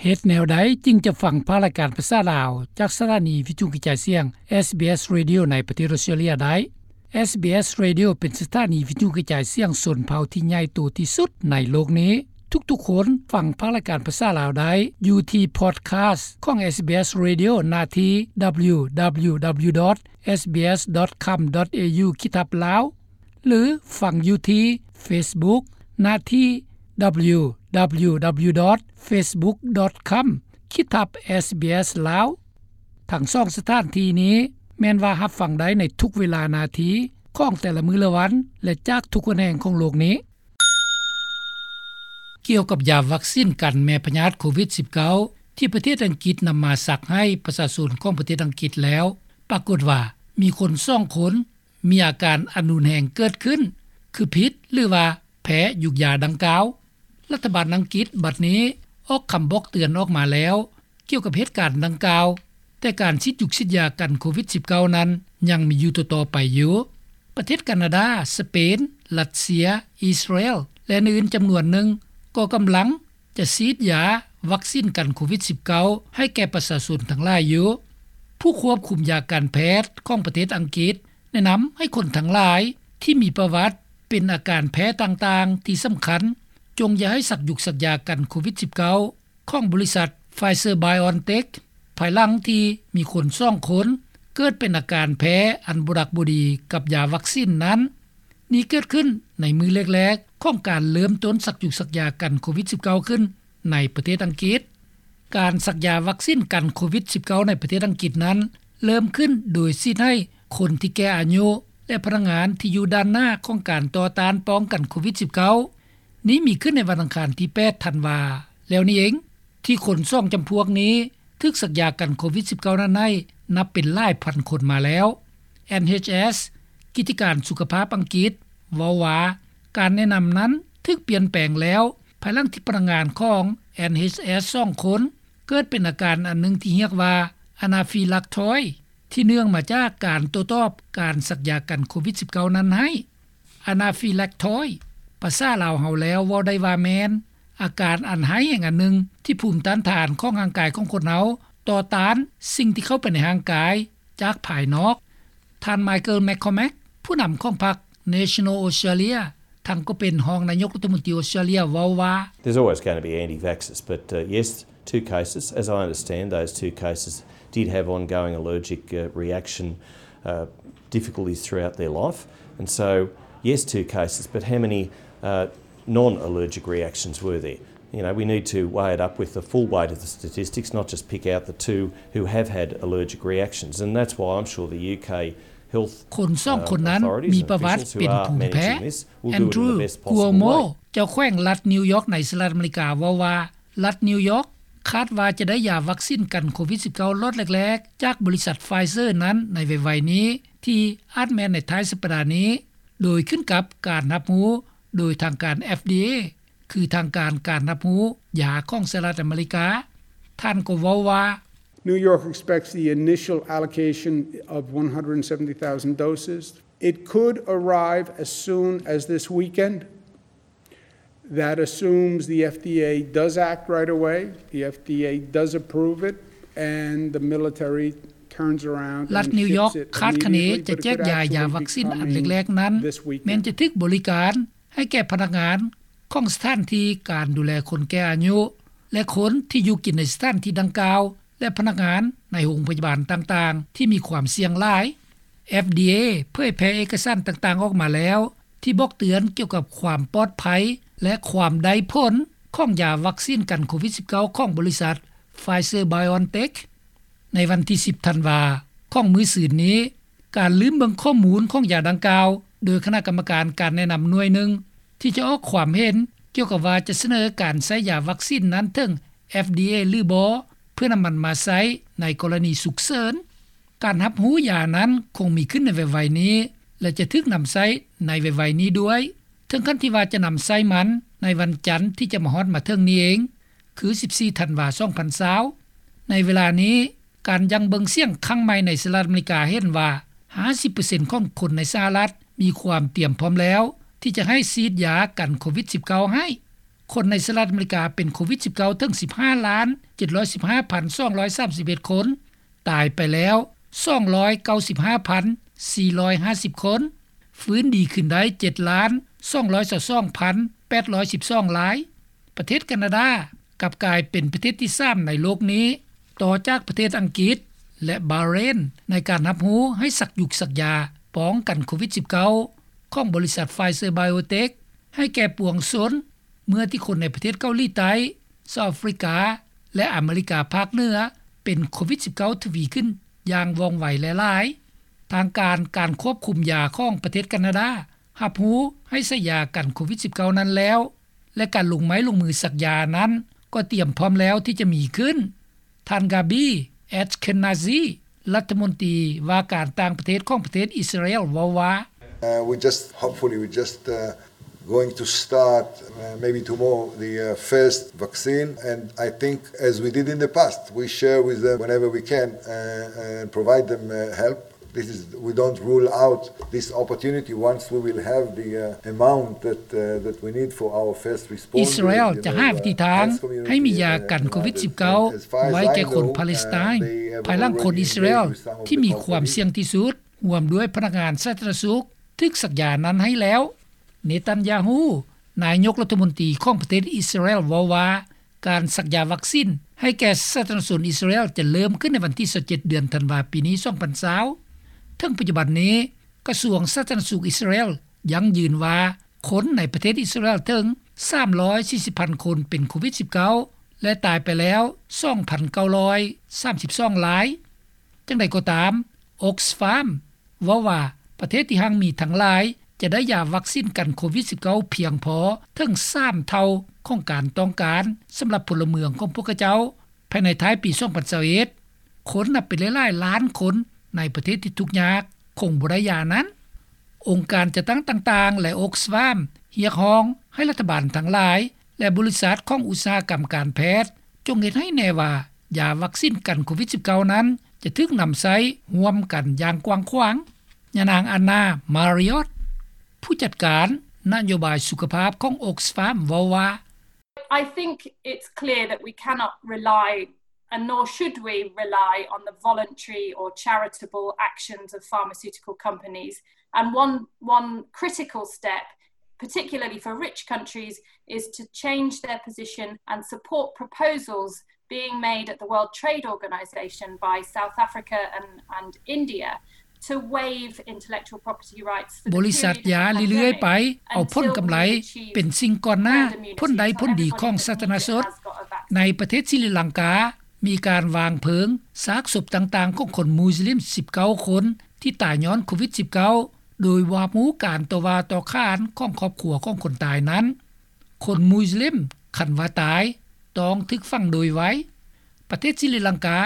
ເຮັດແນວໃດຈຶ່ງຈະຟັງພາກລາຍການພາສາລາວ ຈາກສະຖານີວິທຍຸກະຈາຍສຽງ ເອສບີເອສ Radio ໃນປະເທດອອສເຕຣເລັຍໄດ້? ເອສບີເອສ Radio ເປັນສະຖານີວິທຍຸກະຈາຍສຽງຊົນເຜົ່າທີ່ໃຫຍ່ໂຕທີ່ສຸດໃນໂລກນີ້. ທຸກໆຄົນຟັງພາກລາຍການພາສາລາວໄດ້ຢູ່ທີ່ Podcast ຂອງ ເອສບີເອສ Radio ໜ້າທີ່ www.sbs.com.au ຂີດທັບ Lao ຫຼື ຟັງຢູ່ທີ່ Facebook ໜ້າທີ່ www.facebook.com/sbslaos. ທັງສອງສະຖານທີ່ນີ້ແມ່ນວ່າຮັບຟັງໄດ້ໃນທຸກເວລານາທີຂອງແຕ່ລະມື້ລະວັນ ແລະ ຈາກທຸກຫົນແຫ່ງຂອງໂລກນີ້. ກ່ຽວກັບຢາວັກຊິນກັນແມ່ພະຍາດໂຄວິດ-19 ທີ່ປະເທດອັງກິດນຳມາສັກໃຫ້ປະຊາຊົນຂອງປະເທດອັງກິດແລ້ວ ປາກົດວ່າມີຄົນສອງຄົນ ມີອາການອັນຮຸນແຮງເກີດຂຶ້ນ ຄືຜິດ ຫຼືວ່າແພ້ຢູກຢາດັ່ງກ່າວ. ລັດຖະບານອັງກິດບັດນີ້ອອກຄຳບອກເຕືອນອອກມາແລ້ວ ກ່ຽວກັບເຫດການດັ່ງກ່າວ, ແຕ່ການສີດຢູກສີດຢາກັນໂຄວິດ-19 ນັ້ນຍັງມີຢູ່ຕໍ່ໆໄປຢູ່. ປະເທດການາດາ, ສະເປນ, ຣັດເຊຍ, ອິສຣາແອລ ແລະ ອື່ນໆຈຳນວນໜຶ່ງ ກໍກຳລັງຈະສີດຢາວັກຊິນກັນໂຄວິດ-19 ໃຫ້ແກ່ປະຊາຊົນທັງຫຼາຍຢູ່. ຜູ້ຄວບຄຸມຢາການແພດຂອງປະເທດອັງກິດ ແນະນຳໃຫ້ຄົນທັງຫຼາຍທີ່ມີປະຫວັດເປັນອາການແພ້ຕ່າງໆທີ່ສຳຄັນ ຈົ່ງຢ່າໃຫ້ສັກຢູກສັກຢາກັນໂຄວິດ-19 ຂອງບໍລິສັດ Pfizer-BioNTech ພາຍຫຼັງທີ່ມີຄົນສອງຄົນເກີດເປັນອາການແພ້ອັນບໍ່ດັກບໍ່ດີກັບຢາວັກຊິນນັ້ນ. ນີ້ເກີດຂຶ້ນໃນມື້ແລກໆຂອງການເລີ່ມຕົ້ນສັກຢູກສັກຢາກັນໂຄວິດ-19 ຂຶ້ນໃນປະເທດອັງກິດ. ການສັກຢາວັກຊິນກັນໂຄວິດ-19 ໃນປະເທດອັງກິດນັ້ນ ເລີ່ມຂຶ້ນໂດຍສີດໃຫ້ຄົນທີ່ແກ່ອາຍຸ ແລະ ພະນັກງານທີ່ຢູ່ດ້ານໜ້າຂອງການຕໍ່ຕ້ານປ້ອງກັນໂຄວິດ-19. ນີ້ມີຂຶ້ນໃນວັນອັງຄານທີ ແປດ ທັນວາ ແລ້ວນີ້ເອງ ທີ່ຄົນສອງຈຳພວກນີ້ຖືກສັກຢາກັນໂຄວິດ-19 ນັ້ນໃຫ້ນັບເປັນຫຼາຍພັນຄົນມາແລ້ວ. ເອັນເອັດເອັສ ກິດຈະການສຸຂະພາບອັງກິດເວົ້າວ່າ ການແນະນຳນັ້ນຖືກປ່ຽນແປງແລ້ວ ພາຍຫຼັງທີ່ພະນັກງານຂອງ ເອັນເອັດເອັສ ສອງຄົນ ເກີດເປັນອາການອັນໜຶ່ງທີ່ຮຽກວ່າ Anaphylactosis ທີ່ເນື່ອງມາຈາກການໂຕ້ຕອບການສັກຢາກັນໂຄວິດ-19 ນັ້ນໃຫ້. Anaphylactosis ພາສາລາວເຮົາແລ້ວເວົ້າໄດ້ວ່າແມ່ນອາການອັນຮ້າຍແຮງອັນໜຶ່ງ ທີ່ພູມຕ້ານທານຂອງຮ່າງກາຍຂອງຄົນເຮົາຕໍ່ຕ້ານສິ່ງທີ່ເຂົ້າໄປໃນຮ່າງກາຍຈາກພາຍນອກ. ທ່ານ Michael McCormack ຜູ້ນຳຂອງພັກ National Australia ທັງກໍເປັນຮອງນາຍົກລັດຖະມົນຕີອອສເຕຣເລັຍເວົ້າວ່າ There's always going to be anti-vaxxers, but, uh, yes, two cases. As I understand, those two cases did have ongoing allergic, uh, reaction, uh, difficulties throughout their life. And so, yes, two cases, but how many, uh, non-allergic reactions were there? You know, we need to weigh it up with the full weight of the statistics, not just pick out the two who have had allergic reactions. And that's why I'm sure the ຢູເຄ Health ຄົນສອງຄົນນັ້ນມີປະຫວັດເປັນພູມແພ້. Andrew Cuomo ເຈົ້າແຂວງລັດນິວຢອກໃນສະຫະລັດອາເມລິກາເວົ້າວ່າ ລັດນິວຢອກຄາດວ່າຈະໄດ້ຢາວັກຊິນກັນໂຄວິດ-19 ລັອດແລກໆ ຈາກບໍລິສັດ Pfizer ນັ້ນໃນໄວໆນີ້ ທີ່ອາດແມ່ນໃນທ້າຍສັບປະດານີ້ ໂດຍຂຶ້ນກັບການຮັບຮູ້ໂດຍທາງການ ເອັຟດີເອ ຄືທາງການການຮັບຮູ້ຢາຂອງສະຫະລັດອາເມລິກາ. ທ່ານກໍເວົ້າວ່າ New York expects the initial allocation of one hundred seventy thousand doses. It could arrive as soon as this weekend. That assumes the F D A does act right away, the F D A does approve it, and the military turns around and ships it immediately, but it could actually be coming this weekend. ລັດນິວຢອກຄາດຄະເນຈະແຈກຢາ ຢາວັກຊິນອັນແລກໆນັ້ນ ແມ່ນຈະຖືກບໍລິການໃຫ້ແກ່ພະນັກງານຂອງສະຖານທີ່ການດູແລຄົນແກ່ອາຍຸ ແລະ ຄົນທີ່ຢູ່ກິນໃນສະຖານທີ່ດັ່ງກ່າວ ແລະ ພະນັກງານໃນໂຮງພະຍາບານຕ່າງໆທີ່ມີຄວາມສ່ຽງຫຼາຍ. ເອັຟດີເອ ເຜີຍແຜ່ເອກະສານຕ່າງໆອອກມາແລ້ວ ທີ່ບອກເຕືອນກ່ຽວກັບຄວາມປອດໄພ ແລະ ຄວາມໄດ້ຜົນຂອງຢາວັກຊິນກັນໂຄວິດ-19 ຂອງບໍລິສັດ Pfizer-BioNTech. ໃນວັນທີ ສິບ ທັນວາ ຂອງມື້ຊືນນີ້ ການລືມເບິ່ງຂໍ້ມູນຂອງຢາດັ່ງກ່າວ ໂດຍຄະນະກຳມະການການແນະນຳໜ່ວຍໜຶ່ງ ທີ່ຈະອອກຄວາມເຫັນກ່ຽວກັບວ່າຈະສະເໜີການໃຊ້ຢາວັກຊິນນັ້ນເຖິງ ເອັຟດີເອ ຫຼືບໍ່ ເພື່ອນຳມັນມາໃຊ້ໃນກໍລະນີສຸກເສີນ. ການຮັບຮູ້ຢານັ້ນຄົງມີຂຶ້ນໃນໄວໆນີ້ ແລະ ຈະຖືກນຳໃຊ້ໃນໄວໆນີ້ດ້ວຍ ເຖິງຂັ້ນທີ່ວ່າຈະນຳໃຊ້ມັນໃນວັນຈັນທີ່ຈະມາຮອດມາເຖິງນີ້ເອງ ຄື ສິບສີ່ ທັນວາ ສອງພັນຊາວ. ໃນເວລານີ້ ການຫຍັ່ງເບິ່ງສຽງຄັ້ງໃໝ່ໃນສະຫະລັດອາເມລິກາເຫັນວ່າ ຫ້າສິບເປີເຊັນຂອງຄົນໃນສະຫະລັດມີຄວາມຕຽມພ້ອມແລ້ວ ທີ່ຈະໃຫ້ສີດຢາກັນໂຄວິດ-19 ໃຫ້. ຄົນໃນສະຫະລັດອາເມລິກາເປັນໂຄວິດ-19 ເຖິງ ສິບຫ້າລ້ານ ເຈັດຮ້ອຍສິບຫ້າພັນ ສອງຮ້ອຍສາມສິບເອັດຄົນ, ຕາຍໄປແລ້ວ ສອງຮ້ອຍເກົ້າສິບຫ້າພັນ ສີ່ຮ້ອຍຫ້າສິບຄົນ, ຟື້ນດີຂຶ້ນໄດ້ ເຈັດລ້ານ ສອງຮ້ອຍຊາວສອງພັນ ແປດຮ້ອຍສິບສອງລາຍ. ປະເທດການາດາກັບກາຍເປັນປະເທດທີສາມໃນໂລກນີ້ ຕໍ່ຈາກປະເທດອັງກິດ ແລະ ບາເຣນ ໃນການຮັບຮູ້ໃຫ້ສັກຢຸກສັກຢາປ້ອງກັນໂຄວິດ-19 ຂອງບໍລິສັດ Pfizer BioNTech ໃຫ້ແກ່ປວງຊົນ ເມື່ອທີ່ຄົນໃນປະເທດເກົາຫຼີໃຕ້, ເຊົາອາຟຣິກາ ແລະ ອາເມລິກາພາກເໜືອ ເປັນໂຄວິດ-19 ທະວີຂຶ້ນຢ່າງວ່ອງໄວແລະຫຼາຍ. ທາງການ ການຄວບຄຸມຢາຂອງປະເທດການາດາ ຮັບຮູ້ໃຫ້ໃຊ້ຢາກັນໂຄວິດ-19 ນັ້ນແລ້ວ ແລະ ການລົງໄມ້ລົງມືສັກຢານັ້ນ ກໍຕຽມພ້ອມແລ້ວທີ່ຈະມີຂຶ້ນ. ທ່ານ ກາບີ ແອັດເຄນນາຊີ ລັດຖະມົນຕີວ່າການຕ່າງປະເທດຂອງປະເທດອິດສະຣາແອລ ເວົ້າວ່າ: Uh, we just, hopefully, we just, uh, going to start, uh, maybe tomorrow, the, uh, first vaccine. And I think, as we did in the past, we share with them whenever we can, uh, and provide them, uh, help. This is, we don't rule out this opportunity once we will have the, uh, amount that, uh, that we need for our first response. ອິດສະຣາແອລຈະຫາວິທີທາງໃຫ້ມີຢາກັນໂຄວິດ-19 ໄວ້ແກ່ຄົນປາເລສໄຕນ ພາຍຫຼັງຄົນອິດສະຣາແອລທີ່ມີຄວາມສ່ຽງທີ່ສຸດ ຮ່ວມດ້ວຍພະນັກງານສາທາລະນະສຸກ ຖືກສັກຢານັ້ນໃຫ້ແລ້ວ. ເນຕັນຍາຮູ້ ນາຍົກລັດຖະມົນຕີຂອງປະເທດອິດສະຣາແອລ ເວົ້າວ່າ ການສັກຢາວັກຊິນໃຫ້ແກ່ສາທາລະນະຊົນອິດສະຣາແອລ ຈະເລີ່ມຂຶ້ນໃນວັນທີຊາວເຈັດ ເດືອນທັນວາ ປີນີ້ ສອງພັນຊາວ. ເຖິງປັດຈຸບັນນີ້ ກະຊວງສາທາລະນະສຸກອິດສະຣາແອລ ຢັ້ງຢືນວ່າ ຄົນໃນປະເທດອິດສະຣາແອລເຖິງ ສາມຮ້ອຍສີ່ສິບພັນຄົນເປັນໂຄວິດ-19 ແລະ ຕາຍໄປແລ້ວ ສອງພັນເກົ້າຮ້ອຍສາມສິບສອງລາຍ. ຈັ່ງໃດກໍຕາມ Oxfam ເວົ້າວ່າ ປະເທດທີ່ຮັ່ງມີທັງຫຼາຍ ຈະໄດ້ຢາວັກຊິນກັນໂຄວິດ-19 ພຽງພໍເຖິງສາມເທົ່າຂອງການຕ້ອງການສຳລັບພົນລະເມືອງຂອງພວກເຂົາເຈົ້າ ພາຍໃນທ້າຍປີ ສອງພັນຊາວເອັດ. ຄົນນັບເປັນຫຼາຍໆລ້ານຄົນໃນປະເທດທີ່ທຸກຍາກຄົງບໍ່ໄດ້ຢານັ້ນ. ອົງການຈັດຕັ້ງຕ່າງໆ ແລະ Oxfam ຮຽກຮ້ອງໃຫ້ລັດຖະບານທັງຫຼາຍ ແລະ ບໍລິສັດຂອງອຸດສາຫະກຳການແພດ ຈົ່ງເຮັດໃຫ້ແນ່ວ່າ ຢາວັກຊິນກັນໂຄວິດ-19 ນັ້ນ ຈະຖືກນຳໃຊ້ຮ່ວມກັນຢ່າງກວ້າງຂວາງ. ຍານາງ Anna Marriott ຜູ້ຈັດການນະໂຍບາຍສຸຂະພາບຂອງ Oxfam ເວົ້າວ່າ: I think it's clear that we cannot rely, and nor should we rely, on the voluntary or charitable actions of pharmaceutical companies. And one, one critical step, particularly for rich countries, is to change their position and support proposals being made at the World Trade Organization by South Africa and, and India to waive intellectual property rights for the period of the pandemic ບໍລິສັດຢາເລື້ອຍໆໄປ ເອົາຜົນກຳໄລເປັນສິ່ງກ່ອນໜ້າ ຜົນໄດ້ຜົນດີຂອງສາທາລະນະຊົນ. ໃນປະເທດສີລິລັງກາ ມີການວາງເພີງຊາກສົບຕ່າງໆຂອງຄົນມຸສລິມ ສິບເກົ້າຄົນ ທີ່ຕາຍຍ້ອນໂຄວິດ-19 ໂດຍບໍ່ຮັບຮູ້ການຕໍ່ວ່າຕໍ່ຂານຂອງຄອບຄົວຂອງຄົນຕາຍນັ້ນ. ຄົນມຸສລິມ ຄັນວ່າຕາຍ ຕ້ອງຖືກຝັງໂດຍໄວ. ປະເທດສີລິລັງກາ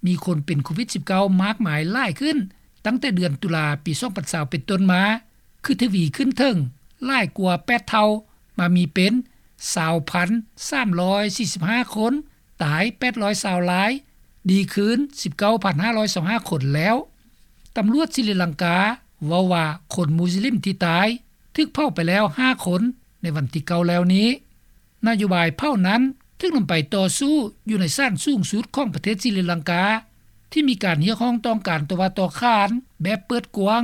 ມີຄົນເປັນໂຄວິດ-19 ມາກມາຍຫຼາຍຂຶ້ນ ຕັ້ງແຕ່ເດືອນຕຸລາ ປີ ສອງພັນຊາວ ເປັນຕົ້ນມາ ຄືທະວີຂຶ້ນເຖິງຫຼາຍກວ່າ ແປດເທົ່າ ມາມີເປັນ ຊາວພັນສາມຮ້ອຍສີ່ສິບຫ້າຄົນ, ຕາຍ ແປດຮ້ອຍຊາວລາຍ, ດີຄືນ ສິບເກົ້າພັນຫ້າຮ້ອຍຊາວຫ້າຄົນແລ້ວ. ຕຳຫຼວດສີລິລັງກາ ເວົ້າວ່າ ຄົນມຸສລິມທີ່ຕາຍ ຖືກເຜົາໄປແລ້ວ ຫ້າຄົນ ໃນວັນທີເກົ້າແລ້ວນີ້. ນະໂຍບາຍເຜົານັ້ນ ຖືກນຳໄປຕໍ່ສູ້ຢູ່ໃນສານສູງສຸດຂອງປະເທດສີລິລັງກາ ທີ່ມີການຮຽກຮ້ອງຕ້ອງການຕໍ່ວ່າຕໍ່ຂານແບບເປີດກວ້າງ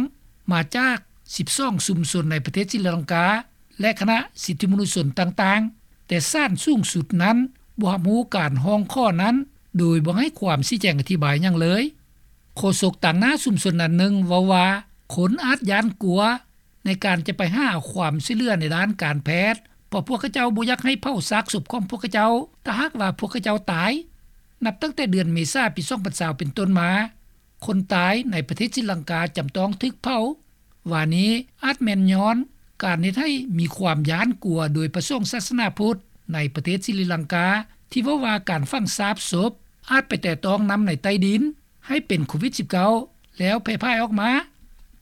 ມາຈາກ ສິບສອງຊຸມຊົນໃນປະເທດສີລິລັງກາ ແລະ ຄະນະສິດທິມະນຸດຊົນຕ່າງໆ, ແຕ່ສານສູງສຸດນັ້ນ ບໍ່ຮັບຮູ້ການຮ້ອງຂໍນັ້ນ ໂດຍບໍ່ໃຫ້ຄວາມຊີ້ແຈງອະທິບາຍຫຍັງເລີຍ. ໂຄສົກຕາງໜ້າຊຸມຊົນນັ້ນໜຶ່ງເວົ້າວ່າ ຄົນອາດຢ້ານກົວ ໃນການຈະໄປຫາຄວາມຊ່ວຍເຫຼືອໃນດ້ານການແພດ ເພາະພວກເຂົາເຈົ້າບໍ່ຢາກໃຫ້ເຜົາຊາກສົບຂອງພວກເຂົາເຈົ້າ ຖ້າຫາກວ່າພວກເຂົາເຈົ້າຕາຍ. ນັບຕັ້ງແຕ່ເດືອນເມສາ ປີ ສອງພັນຊາວ ເປັນຕົ້ນມາ, ຄົນຕາຍໃນປະເທດສີລັງກາຈຳຕ້ອງຖືກເຜົາ. ວ່ານີ້ອາດແມ່ນຍ້ອນການເຮັດໃຫ້ມີຄວາມຢ້ານກົວໂດຍພະສົງສາສະໜາພຸດໃນປະເທດສີລິລັງກາ ທີ່ເວົ້າວ່າການຝັງຊາກສົບອາດໄປແຕະຕ້ອງນ້ຳໃນໃຕ້ດິນ ໃຫ້ເປັນໂຄວິດ-19 ແລ້ວແຜ່ພາຍອອກມາ.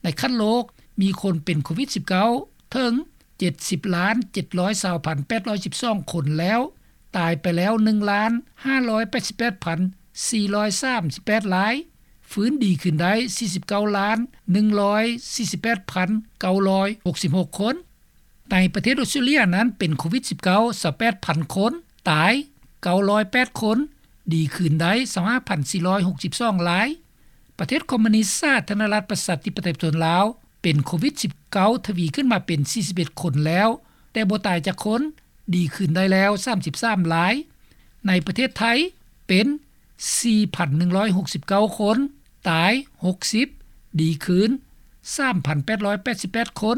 ໃນຂັ້ນໂລກ ມີຄົນເປັນໂຄວິດ-19 ເຖິງ ເຈັດສິບລ້ານເຈັດຮ້ອຍຊາວພັນແປດຮ້ອຍສິບສອງຄົນແລ້ວ, ຕາຍໄປແລ້ວ ໜຶ່ງລ້ານຫ້າຮ້ອຍແປດສິບແປດພັນສີ່ຮ້ອຍສາມສິບແປດລາຍ, ຟື້ນດີຂຶ້ນໄດ້ ສີ່ສິບເກົ້າລ້ານໜຶ່ງຮ້ອຍສີ່ສິບແປດພັນເກົ້າຮ້ອຍຫົກສິບຫົກຄົນ. ໃນປະເທດອອສເຕຣເລັຽນັ້ນ ເປັນໂຄວິດ-19 ຊາວແປດພັນຄົນ, ຕາຍ ເກົ້າຮ້ອຍແປດຄົນ, ດີຄືນໄດ້ ຊາວຫ້າພັນສີ່ຮ້ອຍຫົກສິບສອງລາຍ. ປະເທດຄອມມູນິສສາທາລະນະລັດ ປະຊາທິປະໄຕ ປະຊາຊົນລາວ ເປັນໂຄວິດ-19 ທະວີຂຶ້ນມາເປັນ ສີ່ສິບເອັດຄົນແລ້ວ, ແຕ່ບໍ່ຕາຍຈັກຄົນ, ດີຄືນໄດ້ແລ້ວ ສາມສິບສາມລາຍ. ໃນປະເທດໄທ ເປັນ ສີ່ພັນໜຶ່ງຮ້ອຍຫົກສິບເກົ້າຄົນ, ຕາຍ ຫົກສິບ, ດີຄືນ ສາມພັນແປດຮ້ອຍແປດສິບແປດຄົນ.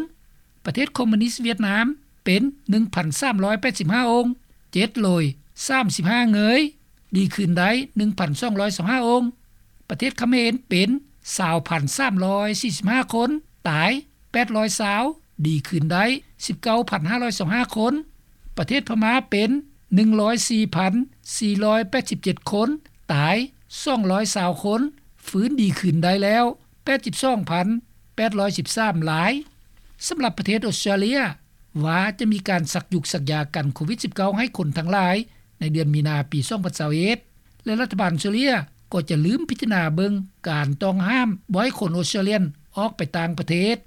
ປະເທດຄອມມູນິສຫວຽດນາມ ເປັນ ໜຶ່ງພັນສາມຮ້ອຍແປດສິບຫ້າອົງ, ເຈັດໂລຍສາມສິບຫ້າເງີຍ, ດີຄືນໄດ້ ໜຶ່ງພັນສອງຮ້ອຍຊາວຫ້າອົງ. ປະເທດຂະເໝນ ເປັນ ຊາວພັນສາມຮ້ອຍສີ່ສິບຫ້າຄົນ, ຕາຍ ແປດຮ້ອຍຊາວ, ດີຄືນໄດ້ ສິບເກົ້າພັນຫ້າຮ້ອຍຊາວຫ້າຄົນ. ປະເທດພະມ້າ ເປັນ ໜຶ່ງຮ້ອຍສີ່ພັນສີ່ຮ້ອຍແປດສິບເຈັດຄົນ, ຕາຍ ສອງຮ້ອຍຊາວຄົນ, ຟື້ນດີຄືນໄດ້ແລ້ວ ແປດສິບສອງພັນແປດຮ້ອຍສິບສາມລາຍ. ສຳລັບປະເທດອອສເຕຣເລັຽ ວ່າຈະມີການສັກຢຸກສັກຢາກັນໂຄວິດ-19 ໃຫ້ຄົນທັງຫຼາຍ ໃນເດືອນມີນາ ປີສອງພັນຊາວເອັດ ແລະ ລັດຖະບານອອສເຕຣເລັຽ ກໍຈະລືມພິຈາລະນາເບິ່ງການຕ້ອງຫ້າມ ບໍ່ໃຫ້ຄົນອອສເຕຣເລັຽນອອກໄປຕ່າງປະເທດ.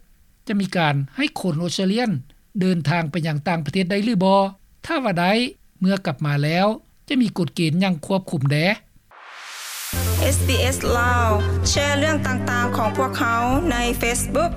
ຈະມີການໃຫ້ຄົນອອສເຕຣເລັຽນເດີນທາງໄປຍັງຕ່າງປະເທດໄດ້ຫຼືບໍ່? ຖ້າວ່າໄດ້, ເມື່ອກັບມາແລ້ວ ຈະມີກົດເກນຫຍັງຄວບຄຸມແດ່? ເອສບີເອສ ລາວ ແຊເລື່ອງຕ່າງໆຂອງພວກເຮົາໃນເຟສບຸກ